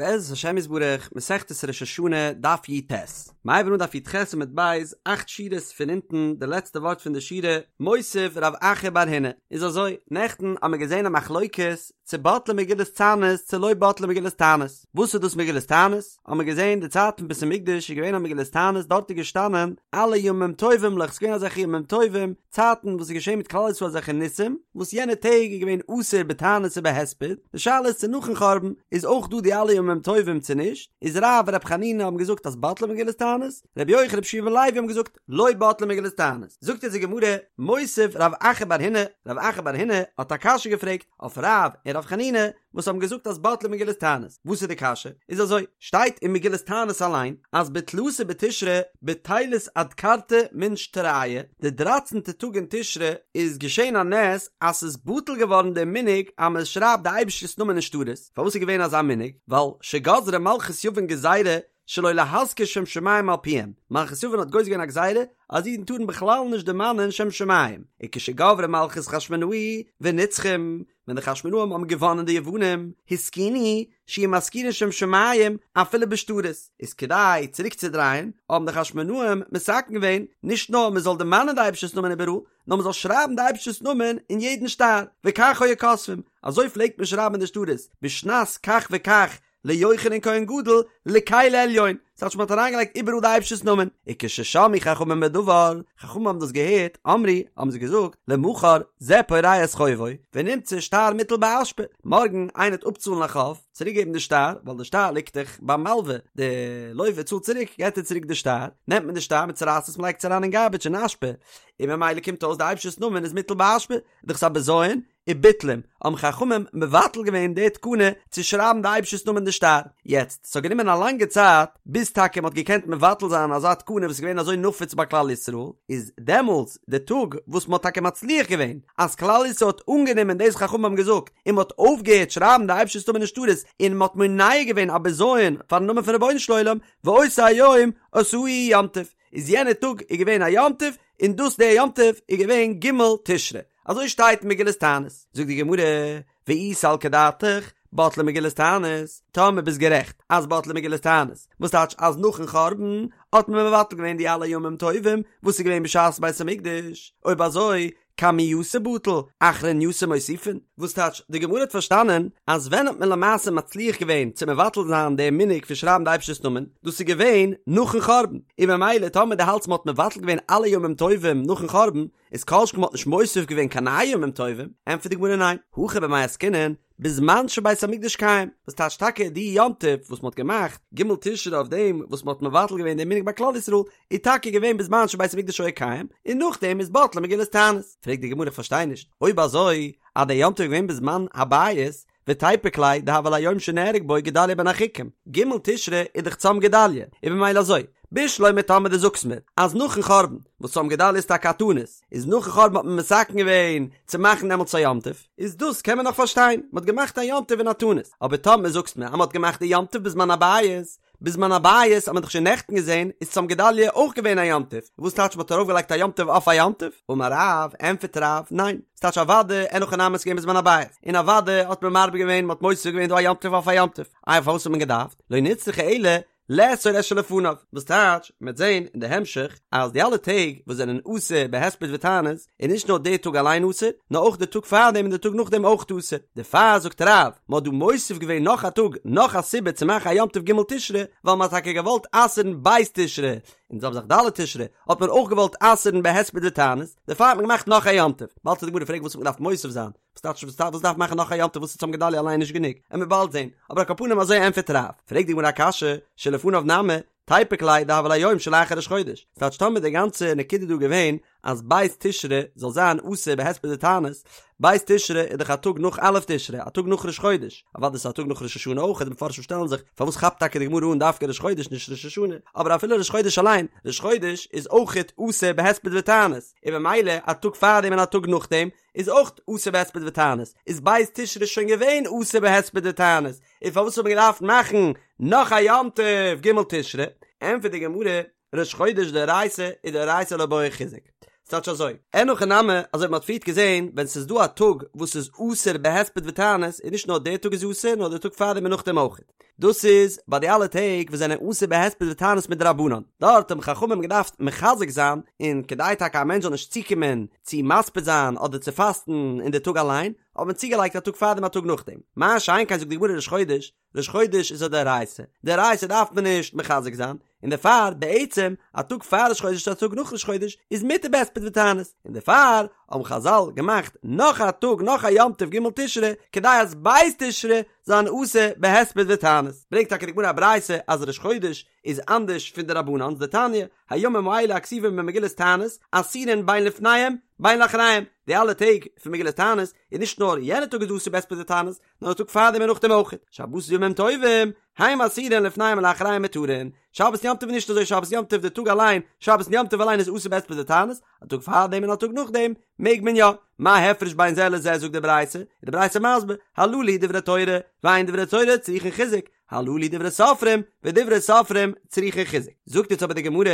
בעזרת השם יתברך, מסכת ראש השנה, דף י"ט. מ'הייבן אן דף י"ח עמוד ב', אכט שורות פון אונטן, די לעצטע ווארט פון די שורה, מותיב רב אחא בר הונא. איז אזוי, נעכטן האמיר געזען א מחלוקת צו בטלה מגילת תענית צו לא בטלה מגילת תענית. וואס איז דאס מגילת תענית? האמיר געזען די צייט פון בית המקדש איז געווען א מגילת תענית, דארט איז געשטאנען אלע ימים טובים'לעך, ס'איז געווען אזעלכע ימים טובים, צייטן וואס איז געשען מיט כלל ישראל אזעלכע ניסים, וואס יענע טעג איז געווען אסור בתענית ובהספד, די שאלה איז צו נאכן חורבן איז אויך דא די אלע ימים טובים צו נישט, איז רב און ר' חנינא האבן געזאגט אז בטלה מגילת תענית, ר' יוחנן ר' יהושע בן לוי האבן געזאגט לא בטלה מגילת תענית, זאגט אונז די גמרא, מותיב רב אחא בר הונא, רב אחא בר הונא האט א קשיא געפרעגט אויף רב און ר' חנינא, וואס האבן געזאגט אז בטלה מגילת תענית, וואס איז די קשיא? איז אזוי, שטייט אין מגילת תענית אליין אז בתלתא בתשרי בטילת אדכרתא מן שטרייא, די דרייצענטע טאג אין תשרי איז געשען א נס אז ס'איז בטל געווארן די מנהג אז מען שרייבט די אייבערשטער'ס נאמען אין שטרות, פארוואס איז געווען אזא מנהג? ווייל שגזרה מלכות יוון גזירה שלא להזכיר שם שמים על פיהם, מלכות יוון האט גוזר געווען א גזירה אז אידן טארן בכלל נישט דערמאנען שם שמים, וכשגברה מלכות חשמונאי ונצחום, ווען די חשמונאים האבן געוואנען די יוונים, התקינו, שיהו מזכירין שם שמים אפילו בשטרות, איז כדי צוריקצודרייען, האבן די חשמונאים מתקן געווען, נישט נאר מען זאל דערמאנען די אייבערשטער'ס נאמען איבעראל, נאר מען זאל שרייבן די אייבערשטער'ס נאמען אין יעדן שטר, וכך היו כותבים, אזוי פלעגט מען שרייבן אין די שטרות, בשנת כך וכך ליוחנן כהן גדול לקל עליון, ס'טייטש מ'האט אריינגעלייגט איבעראל די אייבערשטער'ס נאמען, וכששמעו חכמים בדבר, חכמים האבן דאס געהערט, אמרו, האבן זיי געזאגט, למחר זה פורע את חובו, ונמצא שטר מוטל באשפה, מארגן איינער וועט אפצאלן א חוב, צוריקגעבן די שטר, ווייל די שטר ליגט דאך ביים מלווה, די לווה צאלט צוריק, געט ער צוריק די שטר, נעמט מען די שטר, מ'צורייסט עס, מ'לייגט עס אריין אין גארביטש אין אשפה, און ממילא קומט אויס די אייבערשטער'ס נאמען איז מוטל באשפה, דאך ס'א בזיון, וביטלום, האבן חכמים מבטל געווען די תקנה צו שרייבן די אייבערשטער'ס נאמען אין די שטר. יעצט, ס'האט גענומען א לאנגע צייט ביז טאקע מ'האט געקענט מבטל זיין אזא תקנה וואס איז געווען אזוי נפוץ ביי כלל ישראל, איז דעמאלטס די טאג וואס מ'האט טאקע מצליח געווען אז כלל ישראל האט אנגענומען דאס חכמים האבן געזאגט און מ'האט אויפגעהערט שרייבן די אייבערשטער'ס נאמען אין שטרות און מ'האט מונע געווען א בזיון פאר'ן נאמען פון רבונו של עולם, ואותו היום עשאוהו יום טוב, איז יענע טאג איז געווען א יום טוב, און דאס דער יום טוב איז געווען ג' תשרי, אזוי שטייט אין מגילת תענית, זאגט די גמרא, ואי סלקא דעתך, בטלה מגילת תענית, טאמער ביסט גערעכט אז בטלה מגילת תענית, וואס טייטש אז נאכן חורבן האט מען מבטל געווען די אלע ימים טובים וואס איז געווען בשעת בית המקדש, אויב אזוי קמייתא בטל, אחרנייתא מוסיפין, וואס טייטש, די גמרא האט פארשטאנען אז ווען האט מען למעשה מצליח געווען צו מבטל זיין די מנהג פון שרייבן די אייבערשטער'ס נאמען, דאס איז געווען נאכן חורבן, און ממילא טאמער דו האלטסט מען האט מבטל געווען אלע ימים טובים נאכן חורבן, איז כל שכן מען האט נישט מוסיף געווען קיין נייע ימים טובים, ענטפערט די גמרא ניין, הכא במאי עסקינן, בזמן שבית המקדש קיים, וואס טייטש טאקע די יום טוב וואס מען האט געמאכט ג' תשרי אויף דעם וואס מען האט מבטל געווען דעם מנהג ביי כלל ישראל, איז טאקע געווען בזמן שבית המקדש היה קיים, און נאכדעם איז בטלה מגילת תענית. פרעגט די גמרא איך פארשטיי נישט, אויב אזוי אז דער יום טוב איז געווען בזמן הבית, ותיפוק ליה דהוה ליה יום שנהרג בו גדליה בן אחיקם, ג' תשרי איז דאך צום גדליה, איז במילא אזוי, בשלמא טאמער דו זאגסט מיר אז נאכן חורבן, וואס צום גדליה איז טאקע א תענית, איז נאכן חורבן האט מען מתקן געווען צו מאכן דעמאלטס א יום טוב, איז דאס קען מען נאך פארשטיין, מען האט געמאכט א יום טוב אין א תענית, אבער טאמער זאגסט מיר אז מען האט געמאכט די יום טוב בזמן הבית, בזמן הבית האט מען דאך שוין נעכטן געזען איז צום גדליה אויך געווען א יום טוב, וואס טייטש מען האט ארויפגעלייגט א יום טוב אויף א יום טוב? אמר רב, ענטפערט רב, ניין, ס'טייטש אוודאי אין הכי נמי ס'איז געווען בזמן הבית, און אוודאי האט מען מרבה געווען, מען האט מוסיף געווען דא א יום טוב אויף א יום טוב, איי פארוואס האט מען געדארפט, לא נצרכה אלא לאסור את שלפניו, וואס טייטש, מ'וועט זען אין די המשך אז די אלע טעג וואס זענען אסור בהספד ותענית, איז נישט נאר די טאג אליין אסור, נאר אויך די טאג פארדעם און די טאג נאכדעם אויך אסור. דערפאר זאגט רב, מ'האט דא מוסיף געווען נאך א טאג, נאך א סיבה צו מאכן א יום טוב ג' תשרי, ווייל מ'האט טאקע געוואלט אסר'ן ב' תשרי, און זעלבע זאך ד' תשרי, האט מען אויך געוואלט אסר'ן בהספד ותענית, דערפאר האט מען געמאכט נאך א יום טוב. באלד וועט די גמרא פרעגן וואס האט מען געדארפט מוסיף זיין, וואס טייטש וואס דארף מאכן נאך א יום טוב וואס איז צום גדליה אליין נישט גענוג, עמיר באלד זען, אבער על כל פנים אזוי ענטפערט רב, פרעגט די גמרא א קשיא, שלפניו נמי, תיפוק ליה דהוה ליה יום שלאחר ראש חודש, ס'טייטש טאמער די גאנצע נקודה דא געווען אז ב' תשרי זאל זיין אסור בהספד ותענית, ב' תשרי איז דאך א טאג נאך א' תשרי, א טאג נאך ראש חודש, אוודאי ס'איז א טאג נאך ראש השנה אויך, די מפרשים שטעלן זיך פארוואס כאפט טאקע די גמרא אן דווקא ראש חודש נישט ראש השנה, אבער אפילו ראש חודש אליין, ראש חודש איז אויכעט אסור בהספד ותענית, און במילא א טאג פארדעם און א טאג נאכדעם, איז אויך אסור בהספד ותענית, איז ב' תשרי שוין געווען אסור בהספד ותענית, און פארוואס האט מען געדארפט מאכן נאך א יום טוב ג' תשרי? ענטפערט די גמרא, ראש חודש דאורייתא ודאורייתא לא בעי חיזוק. ס'טייטש אזוי, אין הכי נמי, אזוי ווי מ'האט פריערט געזען, ווען ס'איז דא א טאג וואס איז אסור בהספד ותענית, איז נישט נאר דער טאג איז אסור, נאר דער טאג פארדעם און נאכדעם אויך. דאס איז ביי די אלע טעג וואס זענען אסור בהספד ותענית מדרבנן, דארט האבן חכמים געדארפט מחזק זיין, און כדי טאקע א מענטש זאל נישט צוקומען צו מספיד זיין אדער צו פאסטן אין די טאג אליין, האט מען צוגעלייגט א טאג פארדעם א טאג נאכדעם. מה שאין כן זאגט די גמרא ראש חודש, ראש חודש איז א דאורייתא, דאורייתא דארף מען נישט מחזק זיין, און דערפאר בעצם א טאג פאר ראש חודש צו א טאג נאך ראש חודש איז מותר בהספד ותענית, און דערפאר האבן חזל געמאכט נאך א טאג נאך א יום טוב ג' תשרי כדי אז ב' תשרי זיין אסור בהספד ותענית, ברענגט טאקע די גמרא א ברייתא אז ראש חודש איז אנדערש פון די רבנן'ס דתניא, הימים האלה הכתובים במגילת תענית אסורין בין לפניהם בין לאחריהם, די אלע טעג פון מגילת תענית איז נישט נאר יענע טאג איז אסור בהספד ותענית, נאר די טאג פארדעם און נאכדעם אויך, שבתות וימים טובים, הם אסורין לפניהם ולאחריהם מותרין, שבת יום טוב איז נישט אזוי שבת יום טוב די טאג אליין, שבת יום טוב אליין איז אסור בהספד ותענית, א טאג פארדעם און א טאג נאכדעם מעג מען יא, מה הפרש בין זה לזה זאגט די ברייתא, איז די ברייתא מסביר, הללו דברי תורה, ואין דברי תורה צריכין חיזוק, הללו דברי סופרים, ודברי סופרים צריכין חיזוק. זאגט יעצט אבער די גמרא,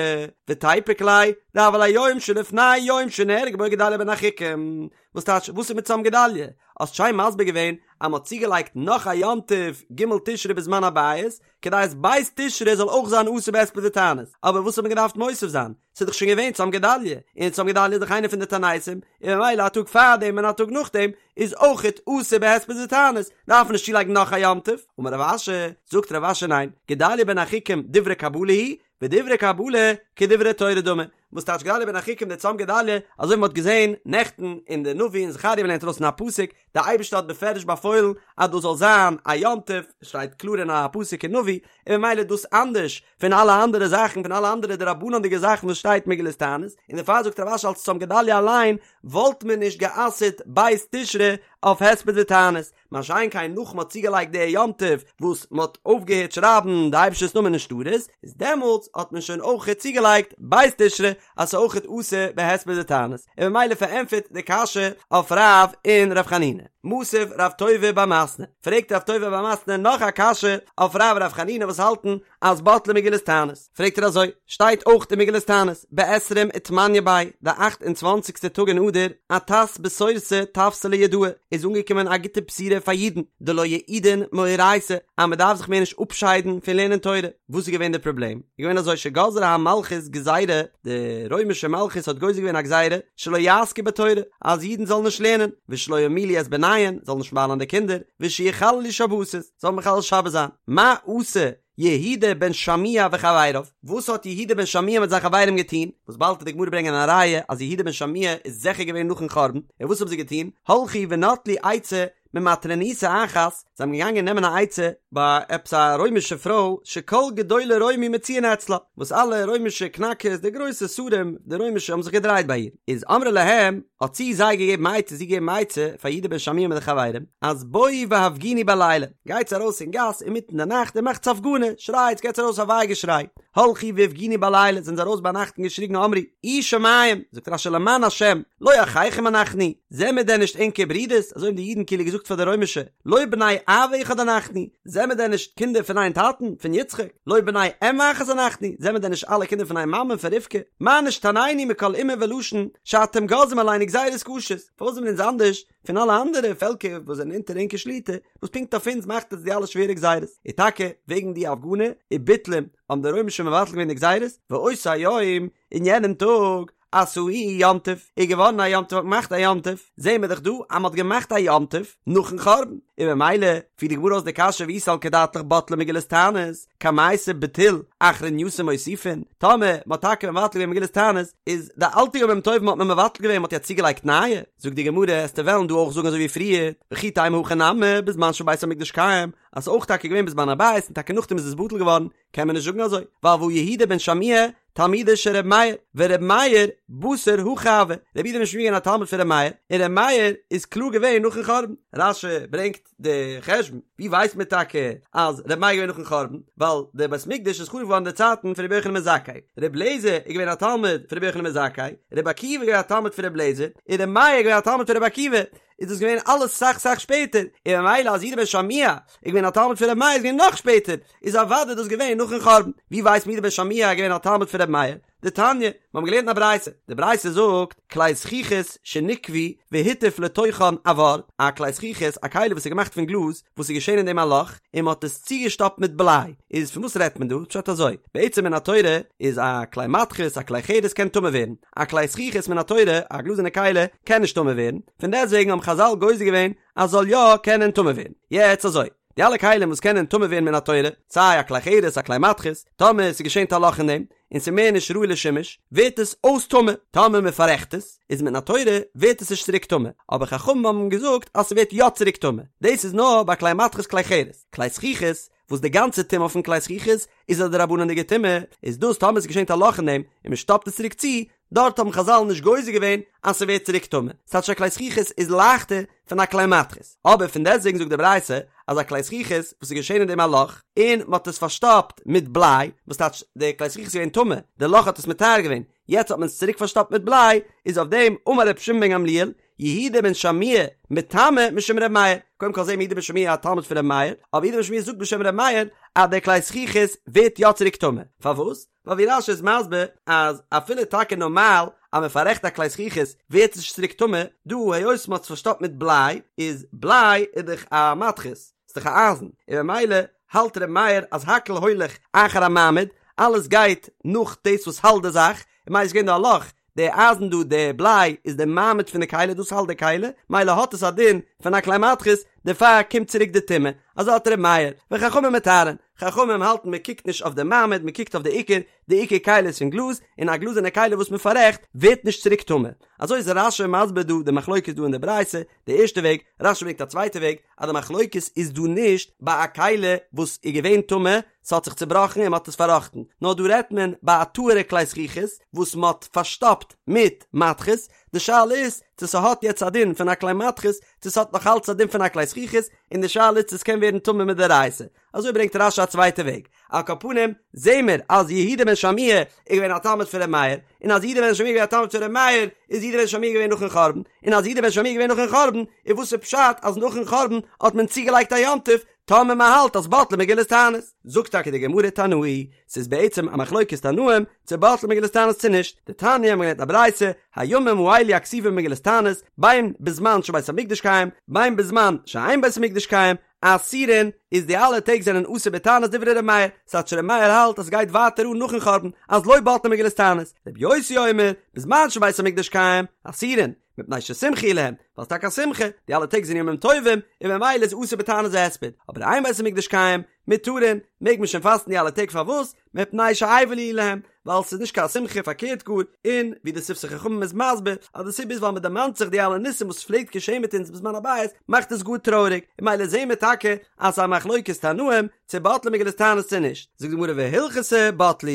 ותיפוק ליה, דהוה ליה יום שלפני יום שנהרג בו גדליה בן אחיקם, וואס טייטש וואס איז מיט צום גדליה? האסט שיין מסביר געווען אז מ'האט צוגעלייגט נאך א יום טוב ג' תשרי בזמן הבית, כדי אז ב' תשרי זאל אויך זיין אסור בהספד ותענית, אבער וואס האט מען געדארפט מוסיף זיין? ס'איז דאך שוין געווען צום גדליה, און צום גדליה איז דאך איינער פון די תעניתים, און ממילא א טאג פארדעם און א טאג נאכדעם איז אויכעט אסור בהספד ותענית, דארף מען נישט צולייגן נאך א יום טוב. אמר רב אשי, זאגט רב אשי ניין, גדליה בן אחיקם דברי קבלה הוא, ודברי קבלה כדברי תורה דמי, וואס טייטש גדליה בן אחיקם די צום גדליה, אזוי ווי מען האט געזען נעכטן אין די נביא אין זכריה מ'לערנט ארויס אין א פסוק, די אייבערשטער האט בפירוש באפוילן אז דאס זאל זיין א יום טוב, שטייט קלאר אין א פסוק אין נביא, און ממילא איז דאס אנדערש פון אלע אנדערע זאכן, פון אלע אנדערע דרבנן'דיגע זאכן וואס שטייט מגילת תענית, און דערפאר זאגט רב אשי אלס צום גדליה אליין וואלט מען נישט גע'אסר'ט ב' תשרי אויף הספד ותענית, מה שאין כן נאך מ'האט צוגעלייגט די יום טוב וואס מ'האט אויפגעהערט שרייבן די אייבערשטער'ס נאמען אין שטרות, איז דעמאלטס האט מען שוין אויכעט צוגעלייגט ב' תשרי אז ס'איז אויכעט אסור בהספד ותענית, און ממילא פארענטפערט די קשיא אויף רב און ר' חנינא. מתיב רב טובי בר מתנה, פרעגט רב טובי בר מתנה נאך א קשיא אויף רב און ר' חנינא וואס האלטן אז בטלה מגילת תענית, פרעגט ער אזוי, שטייט אויך אין מגילת תענית, בעשרים ותמניא ביה, די אכט און צוואנציגסטע טאג אין אדר, אתת בשורתא תווסא ליהודאי, איז אנגעקומען א גוטע בשורה פאר אידן, דלא יעידון מאורייתא, אז מען דארף זיך מער נישט אפשיידן פון לערנען תורה. וואס איז געווען די פראבלעם? איז געווען אזוי שגזרה המלכות גזירה, די רוימישע מלכות האט גוזר געווען א גזירה, שלא יעסקו בתורה, אז אידן זאלן נישט לערנען, ושלא ימולו את בניהן, זאלן נישט מל'ן די קינדער, ושיחללו שבתות, זאלן מחלל שבת זיין. מה עשה יהודה בן שמוע וחבריו? וואס האט יהודה בן שמוע מיט זיין חברים געטון? וואס באלד וועט די גמרא ברענגען א ראיה אז יהודה בן שמוע איז זיכער געווען נאכן חורבן, און וואס האבן זיי געטון? הלכו ונטלו עצה ממטרוניתא אחת, זיי האבן געגאנגען נעמען א עצה ביי עפעס א רוימישע פרוי שכל גדולי רומי מצויין אצלה, וואס אלע רוימישע קנאקערס, די גרויסע שרים, די רוימישע האבן זיך געדרייט ביי איר, איז אמרה להם, האט זי זיי געגעבן עצה, זי געגעבן עצה פאר יהודה בן שמוע מיט די חברים, אז בואו והפגינו בלילה, גייטס ארויס אין גאס אינמיטן די נאכט און מאכטס הפגנה, שרייטס, געטס ארויס א וויי געשריי, הלכו והפגינו בלילה, זענען זיי ארויס ביינאכט און געשריגן אמרו, אי שמים, זאגט רש"י למען השם, לא אחיכם אנחנו, זעמיר דען נישט ענקער ברידערס, אזוי האבן די אידן כאילו געזאגט פאר די רוימישע, לא בני אב אחד אנחנו, זעמיר דען נישט קינדער פון איין טאטן, פון יצחק, לא בני אם אחת אנחנו, זעמיר דען נישט אלע קינדער פון איין מאמע, פון רבקה, מה נשתנינו מכל אומה ולשון, שאתם גוזרים עלינו גזירות קשות, פארוואס זעמיר אונז אנדערש פון אלע אנדערע פעלקער וואס זענען אונטער ענקער שליטה, וואס פונקט אויף אונז מאכט עטס די אלע שווערע גזירות, און טאקע וועגן די הפגנה וביטלום האבן די רוימישע מבטל געווען די גזירות, ואותו היום, אין יענעם טאג, עשאוהו יום טוב, איז געווארן א יום טוב, האט מען געמאכט א יום טוב, זעהן מיר דאך דא אז מען האט געמאכט א יום טוב נאכן חורבן, און ממילא פירט די גמרא אויס די קשיא ואי סלקא דעתך בטלה מגילת תענית, קמייתא בטיל אחרנייתא מוסיפין, טאמער מען האט טאקע מבטל געווען מגילת תענית, איז די אלטע ימים טובים האט מען מבטל געווען, מען האט יעצט צוגעלייגט נייע, זאגט די גמרא, עסטו וועלן דא אויך זאגן אזוי ווי פריער, וכי תימא הכא נמי בזמן שבית המקדש קיים, אז ס'איז אויך טאקע געווען בזמן הבית און טאקע נאכדעם איז עס בטל געווארן, קען מען נישט זאגן אזוי, ווייל והא יהודה בן שמוע תלמידו של ר' מאיר, ור' מאיר בתר הכי הוה, רבי יהודה בן שמוע געווען א תלמיד פון ר' מאיר, און ר' מאיר איז קלאר געווען נאכן חורבן. רש"י ברענגט די חשבון, ווי ווייסט מען טאקע אז ר' מאיר איז געווען נאכן חורבן, ווייל דער בית מקדש איז חרוב געווארן אין די צייטן פון רבי יוחנן בן זכאי, ר' אליעזר איז געווען א תלמיד פון רבי יוחנן בן זכאי, רבי עקיבא איז געווען א תלמיד פון ר' אליעזר, און ר' מאיר איז געווען א תלמיד פון רבי עקיבא, איז דאס געווען אלעס סאך סאך שפעטער, און ממילא אז יהודה בן שמוע איז געווען א תלמיד פון ר' מאיר איז געווען נאך שפעטער, איז אוודאי דאס געווען נאכן חורבן. ווי ווייסט מען יהודה בן שמוע איז געווען א תלמיד פון ר' מאיר? דתניא, מיר האבן געלערנט אין א ברייתא, די ברייתא זאגט, כלי זכוכית שניקבו והטיף לתוכן אבר, א כלי זכוכית, א כלי וואס איז געמאכט פון גלאז, וואס איז געשען אין דעם א לאך, און מען האט עס צוגעשטאפט מיט בליי, איז פון וואס רעדט מען דא? פשט אזוי, בעצם מן התורה איז א כלי מתכות, א כלי חרס קען טמא ווערן, א כלי זכוכית מן התורה, א גלאזערנע כלי, קען נישט טמא ווערן, פון דעסטוועגן האבן חזל גוזר געווען אז זאל יא קענען טמא ווערן. יעצט אזוי, די אלע כלים וואס קענען טמא ווערן מן התורה, סיי א כלי חרס א כלי מתכות, טאמער ס'איז געשען א לאך אין דעם, און ס'איז מער נישט ראוי לשימוש, ווערט עס אויס טמא, טאמער מען פאררעכט עס, איז מן התורה ווערט עס נישט צוריק טמא, אבער חכמים האבן געזאגט אז ס'ווערט יא צוריק טמא, דאס איז נאר ביי כלי מתכות כלי חרס, כלי זכוכית, וואס די גאנצע טומאה פון כלי זכוכית איז א דרבנן'דיגע טומאה, איז דאס טאמער ס'איז געשען א לאך אין דעם, און מען שטאפט עס צוריק צו, דארט האבן חזל נישט גוזר געווען אז ס'ווערט צוריק טמא, ס'טייטש א כלי זכוכית איז לייכטער פון א כלי מתכות, אבער פון דעסטוועגן זאגט די ברייתא אז א כלי זכוכית וואס איז געשען אין דעם א לאך און מ'האט עס פארשטאפט מיט בליי, וואס טייטש די כלי זכוכית איז געווען טמא, די לאך האט עס מטהר געווען, יעצט האט מען עס צוריק פארשטאפט מיט בליי, איז אויף דעם אמר רבי שמעון בן גמליאל, יהודה בן שמוע מטמא משום ר' מאיר, קודם כל זעהן מיר יהודה בן שמוע א תלמיד פון ר' מאיר, אבער יהודה בן שמוע זאגט בשם ר' מאיר אז די כלי זכוכית ווערט יא צוריק טמא, פארוואס? ווייל ווי רש"י איז מסביר אז אפילו טאקע נארמאל אז מען פאררעכט א כלי זכוכית ווערט עס נישט צוריק טמא, דא היות מען האט עס פארשטאפט מיט בליי, איז בליי איז דאך א מתכות, ס'איז דאך א אייזן, און ממילא האלט ר' מאיר אז הכל הולך אחר המעמיד, אלעס גייט נאך דאס וואס האלט די זאך, און ממילא איז געווען דא א לאך, די אייזן דא, די בליי, איז די מעמיד פון די כלי, דאס האלט די כלי, ממילא האט עס א דין פון א כלי מתכות, דערפאר קומט צוריק די טומאה, אזוי האלט ר' מאיר, וחכמים מטהרין, חכמים האלטן מען קוקט נישט אויף די מעמיד, מען קוקט אויף די עיקר, די עיקר כלי איז פון גלאז, און א גלאזערנע כלי וואס מען פאררעכט ווערט נישט צוריק טמא. אזוי איז רש"י מסביר דא די מחלוקת דא אין די ברייתא, די ערשטע וועג, רש"י ברענגט א צווייטע וועג, אז די מחלוקת איז דא נישט ביי א כלי וואס איז געווען טמא, ס'האט זיך צובראכן און מ'האט עס פארראכטן, נאר דא רעדט מען ביי א טהור'ע כלי זכוכית וואס מ'האט פארשטאפט מיט מתכות, די שאלה איז צו ס'האט יעצט א דין פון א כלי מתכות, צו ס'האט נאך אלץ א דין פון א כלי זכוכית, און די שאלה איז צו ס'קען ווערן טמא מדאורייתא. אזוי ברענגט רש"י א צווייטע וועג. על כל פנים, זעהן מיר אז יהודה בן שמוע איז געווען א תלמיד פון ר' מאיר, און אז יהודה בן שמוע איז געווען א תלמיד פון ר' מאיר, איז יהודה בן שמוע געווען נאכן חורבן, און אז יהודה בן שמוע איז געווען נאכן חורבן, איז וואס איז פשט אז נאכן חורבן האט מען צוגעלייגט א יום טוב, טאמער מען האלט אז בטלה מגילת תענית? זאגט טאקע די גמרא תנאי, ס'איז בעצם א מחלוקת תנאים צו בטלה מגילת תענית צו נישט, דתניא מ'האט געלערנט א ברייתא, הימים האלו הכתובים במגילת תענית, בין בזמן שבית המקדש קיים, בין בזמן שאין בית המקדש קיים, אסורין, איז די אלע טעג זענען אסור בתענית דברי ר' מאיר, ס'טייטש ר' מאיר האלט אז ס'גייט ווייטער אן נאכן חורבן, אז לא בטלה מגילת תענית, ר' יוסי אומר, בזמן שבית המקדש קיים, אסורין, מפני ששמחה היא להם, ווייל ס'טאקע א שמחה, די אלע טעג זענען ימים טובים, און ממילא איז אסור בתענית והספד, אבער אין בית המקדש קיים, מותרין, מעג מען שוין פאסטן די אלע טעג פארוואס? מפני שאבל הוא להם, ווייל ס'איז נישט קיין שמחה פארקערט גאר, און ווי די שפתי חכמים איז מסביר, אז די סיבה איז ווייל מ'דערמאנט זיך די אלע ניסים וואס פלעגט געשען מיט אונז בזמן הבית, מאכט עס גאר טרויעריג, און ממילא זעהן מיר טאקע אז ס'איז א מחלוקת תנאים, צו בטלה מגילת תענית צו נישט, זאגט די גמרא והלכתא בטלו,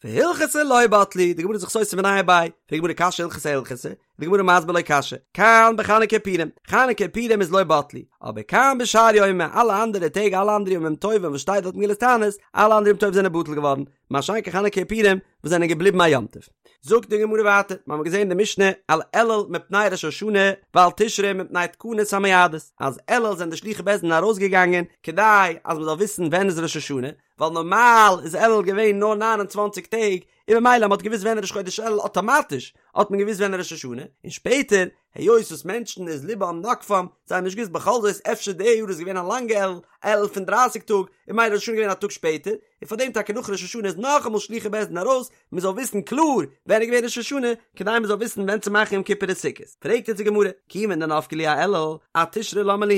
והלכתא לא בטלו, די גמרא איז זיך סותר מיניה וביה, פרעגט די גמרא קשיא הלכתא אהלכתא, די גמרא מסביר לא קשיא, כאן בחנוכה ופורים, חנוכה פורים איז לא בטלו, אבער כאן בשאר יומי, אלע אנדערע טעג אלע אנדערע ימים טובים וואס שטייט דארט מגילת תענית, אלע אנדערע ימים טובים זענען בטל געווארן, מה שאין כן חנוכה ופורים וואס זענען געבליבן א יום טוב. זאגט די גמרא ווייטער, מיר האבן געזען אין די משנה על אלול מפני ראש השנה ועל תשרי מפני תקנת המועדות, אז אלול זענען די שלוחי בית דין ארויסגעגאנגען כדי אז מען זאל וויסן ווען איז ראש השנה, ווייל נארמאל איז אלול געווען נאר 29 טעג, און ממילא מ'האט געוואוסט ווען ראש חודש אלול אטאמאטיש האט מען געוואוסט ווען ראש השנה, און שפעטער היות וואס מענטשן איז לבם נוקפם, זיי האבן נישט געוואוסט בכל זאת אפשר די יאר איז געווען א לאנגע אלול, אלול פון דרייסיג טאג, און ממילא ראש השנה געווען א טאג שפעטער, און פארדעם טאקע נאך ראש השנה איז נאכאמאל שלוחי בית דין ארויס, מען זאל וויסן קלאר ווען איז געווען ראש השנה, כדי מען זאל וויסן ווען צו מאכן יום כיפור און סוכות. פרעגט יעצט די גמרא, כיוון דנפקי להו אאלול, אתשרי למה להו,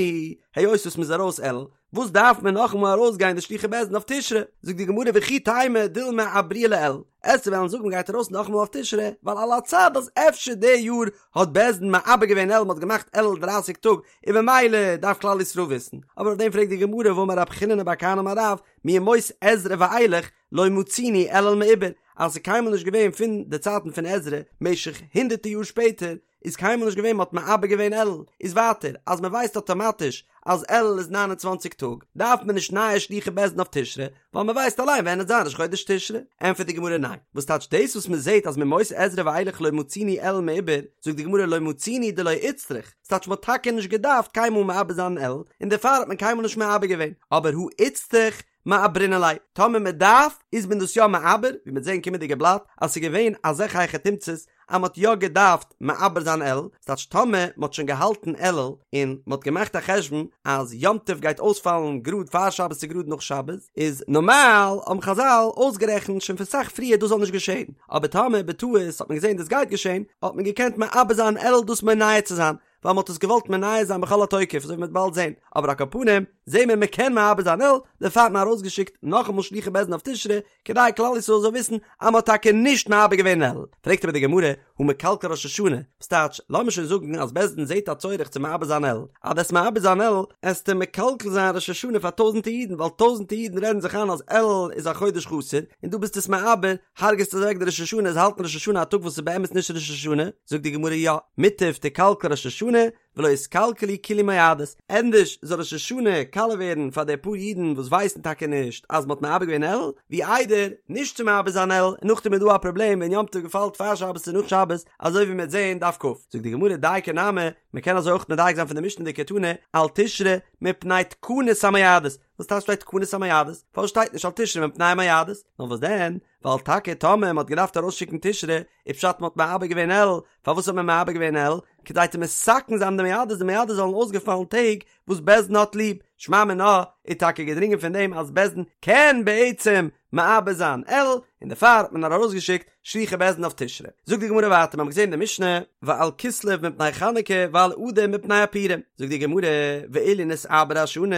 היות וואס מען איז ארויס אלול, וואס דארף מען נאכאמאל ארויסגיין די שלוחי בית דין אויף תשרי? זאגט די גמרא וכי תימא דילמא עברוה לאלול, עסטו וועלן זאגן מ'גייט ארויס נאכאמאל אויף תשרי, ווייל על הצד אז אפשר די יאר האט בית דין מעבר געווען אלול מ'האט געמאכט אלול דרייסיג טאג און ממילא דארף כלל ישראל וויסן, אבער אויף דעם פרעגט די גמרא והאמר רב חיננא בר כהנא אמר רב מימות עזרא ואילך לא מצינו אלול מעובר אז ס'איז קיינמאל נישט געווען פון די צייטן פון עזרא משך הונדערטער יאר שפעטער איז קיינמאל נישט געווען מ'האט מעבר געווען אלול, איז ווייטער אז מ'ווייסט אטאמאטיש אז אלול איז 29 טאג, דארף מען נישט נייע שלוחי בית דין אויף תשרי, ווייל מ'ווייסט אליין ווען עט זיין ראש חודש תשרי. ענטפערט די גמרא ניין, וואס טייטש דאס וואס מ'זעט אז מימות עזרא ואילך לא מצינו אלול מעובר, זאגט די גמרא לא מצינו דלא איצטריך, ס'טייטש מ'האט טאקע נישט געדארפט קיינמאל מעבר זיין אלול, און דערפאר האט מען קיינמאל נישט מעבר געווען, אבער הא איצטריך? מעברינן ליה, טאמער מען דארף איז מען דאס יא מעבר, ווי מ'וועט זען קומענדיגע בלאט אז ס'איז געווען אזעלכע היכי תמצא'ס אז מ'האט יא געדארפט מעבר זיין אלול, ס'טייטש טאמער מ'האט שוין געהאלטן אלול און מ'האט געמאכט א חשבון אז יום טוב גייט אויספאלן גראד פאר שבת צו גראד נאך שבת, איז נארמאל האבן חזל אויסגערעכנט שוין פון סאך פריער דאס זאל נישט געשען, אבער טאמער בטעות האט מען געזען דאס גייט געשען האט מען געקענט מעבר זיין אלול דאס מונע צו זיין, ווייל מ'האט עס געוואלט מונע זיין בכל התוקף אזוי ווי מ'וועט באלד זען, אבער על כל פנים זעהן מיר מ'קען מעבר זיין אלול, דערפאר האט מען ארויסגעשיקט נאכאמאל שלוחי בית דין אויף תשרי, כדי כלל ישראל זאל וויסן אז מ'האט טאקע נישט מעבר געווען אלול. פרעגט אבער די גמרא, הא מקלקל ראש השנה, וואס טייטש, לאמיר שוין זאגן אז בית דין זעהט א צורך צו מעבר זיין אלול, אז דו'סט מעבר זיין אלול, עסטו מקלקל זיין ראש השנה פאר טויזענטע אידן, ווייל טויזענטע אידן רעדן זיך איין אז אלול איז א חודש חסר, און דו ביסט עס מעבר, הרג'סט אוועק די ראש השנה, זיי האלטן ראש השנה א טאג וואס איז באמת נישט ראש השנה, זאגט די גמרא יא, מוטב תיקלקל ראש השנה, ולא יתקלקלו כולהו מועדות, ענדערש זאל ראש השנה קאליע ווערן פאר די פאר אידן וואס ווייסן טאקע נישט אז מ'האט מעבר געווען אלול, ווי איידער נישט צו מעבר זיין אלול און נאכדעם איז דא א פראבלעם ווען יום טוב געפאלט פאר שבת צו נאך שבת, אזוי ווי מ'וועט זען דף כ. זאגט די גמרא דייקא נמי, מ'קען אזוי אויך מדייק זיין פון די משנה דקתני על תשרי מפני תקנת המועדות, וואס טייטש שטייט תקנת המועדות? פארוואס שטייט נישט על תשרי מפני המועדות? נאר וואס דען? ווייל טאקע טאמער מ'האט געדארפט ארויסשיקן תשרי, איז פשט מ'האט מעבר געווען אלול, פארוואס האט מען מעבר געווען אלול? כדי צו מתקן זיין די מועדות, די מועדות זאלן אויסגעפאלן טעג וואס בית דין האט ליב, שמע מינה איז טאקע געדרינגען פון דעם אז בית דין קען בעצם מעבר זיין אלול, און דערפאר האט מען נאר ארויסגעשיקט שלוחי בית דין אויף תשרי. זאגט די גמרא ווייטער, מיר האבן געזען אין די משנה, ועל כסלו מפני חנוכה ועל אדר מפני הפורים, זאגט די גמרא, ואילו נתעברה השנה,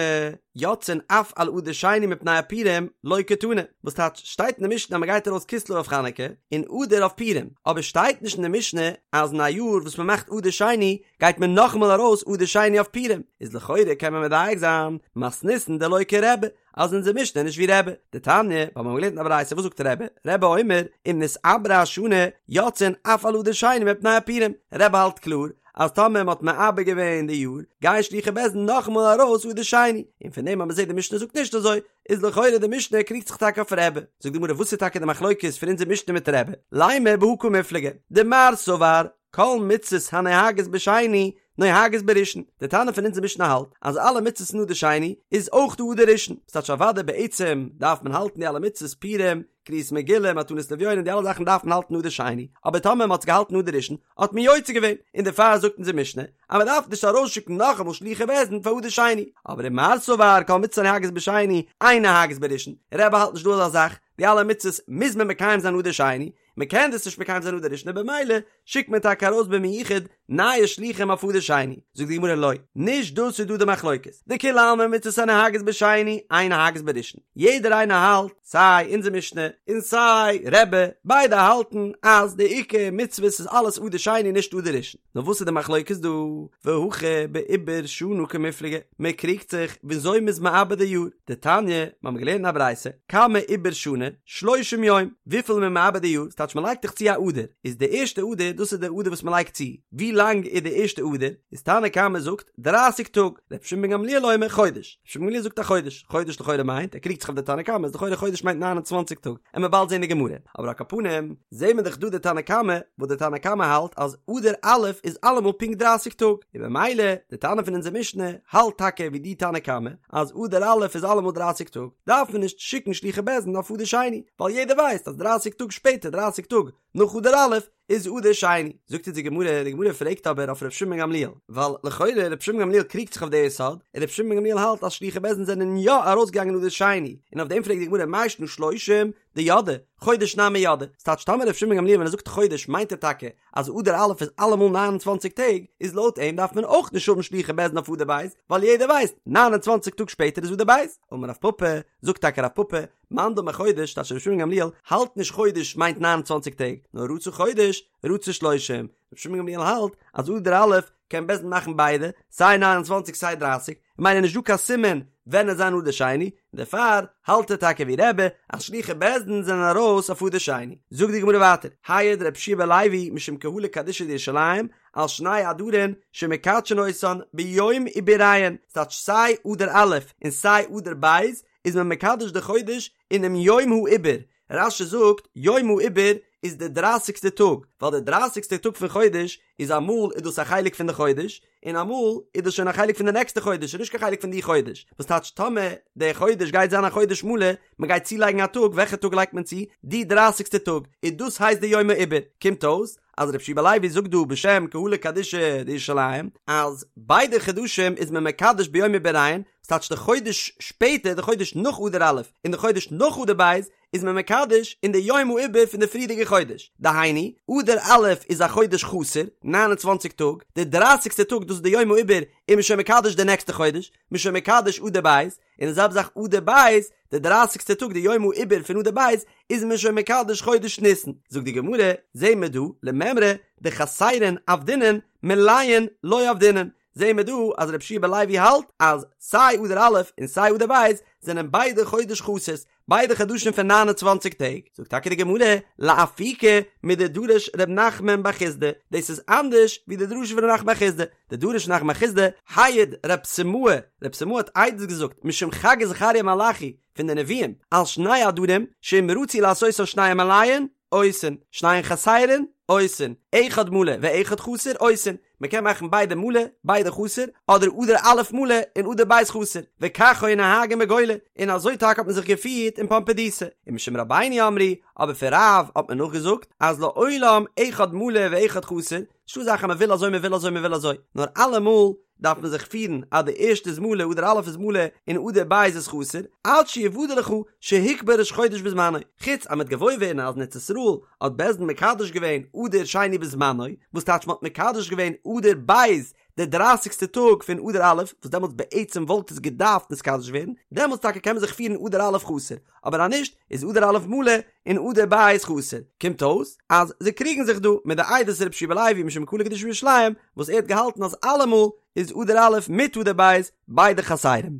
יוצאין אף על אדר שני מפני הפורים, לא קתני, וואס טייטש, שטייט אין די משנה אז מען גייט ארויס כסלו אויף חנוכה, און אדר אויף פורים, אבער שטייט נישט אין די משנה אז אין א יאר וואס מען מאכט אדר שני, גייט מען נאכאמאל ארויס אדר שני אויף פורים, איז לכאורה קען מען מדייק זיין, מתניתין דלא כרבי, אז אונזער משנה איז נישט ווי רבי, דתניא, ווייל מיר האבן געלערנט אין א ברייתא וואס זאגט רבי, רבי אומר, אם נתעברה השנה, יוצאין אף על אדר שני מפני הפורים, רבי האלט קלאר, אז טאמער מען האט מעבר געווען די יאר, גייען שלוחי בית דין נאכאמאל ארויס אדר שני, און פון דעם אז מען זעט די משנה זאגט נישט אזוי, איז לכאורה די משנה קריגט זיך טאקע אויף רבי. זאגט די גמרא וואס איז טאקע די מחלוקת פון אונזער משנה מיט רבי, לימא בהא קמיפלגי, דמר סבר, כל מצות הנוהגות בשני נוהגות בראשון, די תנא פון אונזער משנה האלט אז אלע מצות אין אדר שני איז אויך דא אדר ראשון, ס'טייטש אוודאי בעצם דארף מען האלטן די אלע מצות פורים, קריאת מגילה, מתנות לאביונים, די אלע זאכן דארף מען האלטן אדר שני, אבער טאמער מ'האט עס געהאלטן אדר ראשון האט מען יוצא געווען, און דערפאר זאגט אונזער משנה אז מ'דארף נישט ארויסשיקן נאכאמאל שלוחי בית דין פאר אדר שני, אבער ומר סבר כל מצות הנוהגות בשני אין נוהגות בראשון, רבי האלט נישט דא אזא זאך, די אלע מצות מוז מען מקיים זיין אדר שני, מען קען דאס נישט מקיים זיין אדר ראשון און במילא שיקט מען טאקע ארויס במיוחד נייע שלוחים אויף אדר שני, זאגט די גמרא לא, נישט דאס איז דא די מחלוקת, דכולי עלמא מצות הנוהגות בשני אין נוהגות בראשון, יעדער איינער האלט, סיי אונזער משנה און סיי רבי, ביידע האלטן אז די עיקר מצוות איז אלעס אדר שני נישט אדר ראשון, נאר וואס איז די מחלוקת דא? והכא בעיבור שנה קמיפלגי, מען קריגט זיך וויאזוי מ'איז מעבר די יאר, דתניא, מיר האבן געלערנט אין א ברייתא, כמה עיבור שנה, שלושים יום, וויפיל איז מען מעבר די יאר, ס'טייטש מען לייגט דאך צו א אדר, איז די ערשטע אדר, דאס איז די אדר וואס מען לייגט צו, ווי לאנג איז די ערשטע אדר, איז תנא קמא זאגט, דרייסיג טאג, רבי שמעון בן גמליאל אומר חודש, רבי שמעון בן גמליאל זאגט א חודש, חודש לכאורה מיינט, ער קריגט זיך אויף די תנא קמא, איז לכאורה חודש מיינט ניין און צוואנציג טאג, עמיר באלד זען די גמרא, אבער על כל פנים, זעהן מיר דאך דא די תנא קמא, וואס די תנא קמא האלט אז אדר א' איז אלעמאל פונקט דרייסיג טאג, און במילא די תנא פון אונזער משנה האלט טאקע ווי די תנא קמא אז אדר א' איז אלעמאל דרייסיג טאג, דארף מען נישט שיקן שלוחי בית דין אויף אדר שני, ווייל יעדער ווייסט אז דרייסיג טאג שפעטער דרייסיג טאג נאך אדר א' איז אדר שני. זאגט אונז די גמרא, די גמרא פרעגט אבער אויף ר' שמעון בן גמליאל, ווייל לכאורה ר' שמעון בן גמליאל קריגט זיך אויף די יסוד, און ר' שמעון בן גמליאל האלט אז שלוחי בית דין זענען יא ארויסגעגאנגען אדר שני, און אויף דעם פרעגט די גמרא מאי שנא שלושים, דידעי, חודש נמי ידעי, ס'טייטש טאמער ר' שמעון בן גמליאל ווען ער זאגט חודש מיינט ער טאקע אז אדר א' איז אלעמאל 29 טעג, איז לויט אים דארף מען אויך נישט האבן שלוחי בית דין אויף אדר ב', ווייל יעדער ווייסט 29 טאג שפעטער איז אדר ב'. אמר רב פפא, זאגט טאקע רב פפא, מאן דאמר חודש, טייטש ר' שמעון בן גמליאל האלט נישט חודש מיינט 29 טעג, נאר רצה חודש, רצה שלושים, ר' שמעון בן גמליאל האלט אז אדר א' קען בית דין מאכן ביידע, סיי 29 סיי 30, ממילא נישט דא קיין סימן ווען עט זיין אדר שני, און דערפאר האלט ער טאקע ווי רבי אז שלוחי בית דין זענען ארויס אויף אדר שני. זאגט די גמרא ווייטער, העיד רבי יהושע בן לוי משום קהלא קדישא דירושלים על שני אדרין שמקדשין אותן ביום עיבוריהן, ס'טייטש סיי אדר א' און סיי אדר ב' איז מען מקדש די חודש אינעם יום העיבור, רש"י זאגט יום העיבור. איז די דרייסיגסטע טאג, ווייל די דרייסיגסטע טאג פון חודש איז אמאל איז דאס א חלק פון די חודש, און אמאל איז דאס שוין א חלק פון די נעקסטע חודש, ס'איז נישט קיין חלק פון די חודש, וואס טייטש טאמער די חודש גייט זיין א חודש מלא, מען גייט צולייגן א טאג, וועלכע טאג לייגט מען צו? די דרייסיגסטע טאג, און דאס הייסט די יום העיבור, קומט אויס אז רבי יהושע בן לוי זאגט דא בשם קהלא קדישא דירושלים אז ביידע חדשים איז מען מקדש ביום עיבוריהן, וואס טייטש די חודש שפעטער, די חודש נאך אדר א' און די חודש נאך אדר ב', איז מען מקדש אין די יום העיבור פון די פריערדיגע חודש, דהיינו, אדר א' איז א חודש חסר, 29 טאג, די דרייסיגסטע טאג דאס איז די יום העיבור, איז מען שוין מקדש די נעקסטע חודש, מען איז שוין מקדש אדר ב', און די זעלבע זאך אדר ב', די דרייסיגסטע טאג די יום העיבור פון אדר ב', איז מען שוין מקדש חודש ניסן. זאגט די גמרא, זעהן מיר דא, למימרא דחסרין עבדינן מלאין לא עבדינן, זעהן מיר דא אז רבי יהושע בן לוי האלט אז סיי אדר א' און סיי אדר ב' זענען ביידע חודש חסר'ס, ביידע חדשים פון 29 טעג, זאגט טאקע די גמרא, לאפוקי מדדרש ר' נחמן בר חסדא, דאס איז אנדערש ווי די דרשה פון ר' נחמן בר חסדא, דדרש ר' נחמן בר חסדא, העיד רב סימאי, רב סימאי האט עדות געזאגט משום חגי זכריה מלאכי פון די נביאים, על שני עדרים, שאם רצו לעשותן שניהם מלאין, עושין, שניהם חסרין, עושין, אחד מלא ואחד חסר, עושין, מען קען מאכן ביידע מלא, ביידע חסר, אדער אדר א' מלא און אדר ב' חסר, וכך היו נוהגין בגולה, און אזוי טאקע האט מען זיך געפירט אין פומבדיתא, ומשום רבינו אמרו, אבער פון רב האט מען נאכגעזאגט, אז לעולם אחד מלא ואחד חסר, נישטא אזא זאך אז מען וויל אזוי מען וויל אזוי מען וויל אזוי, נאר אלעמאל דארף מען זיך פירן אז די ערשטע איז מלא אדר א' איז מלא און אדר ב' איז חסר, עד שיוודע לך שהוקבע ראש חודש בזמנו, חוץ אז מ'וועט געוואויר ווערן אז אין ארץ ישראל האט בית דין מקדש געווען אדר שני בזמנו, וואס טייטש מ'האט מקדש געווען אדר ב' די דרייסיגסטע טאג פון אדר א', וואס דעמאלטס בעצם וואלט עס געדארפט נתקדש ווערן, דעמאלטס טאקע קען מען זיך פירן אדר א' חסר, אבער אז נישט איז אדר א' מלא און אדר ב' חסר, קומט אויס אז זיי קריגן זיך דא מיט די עדות רבי יהושע בן לוי משום קהלא קדישא בירושלים וואס ער האט געהאלטן אז אלעמאל איז אדר א' מיט אדר ב' ביידע חסרים.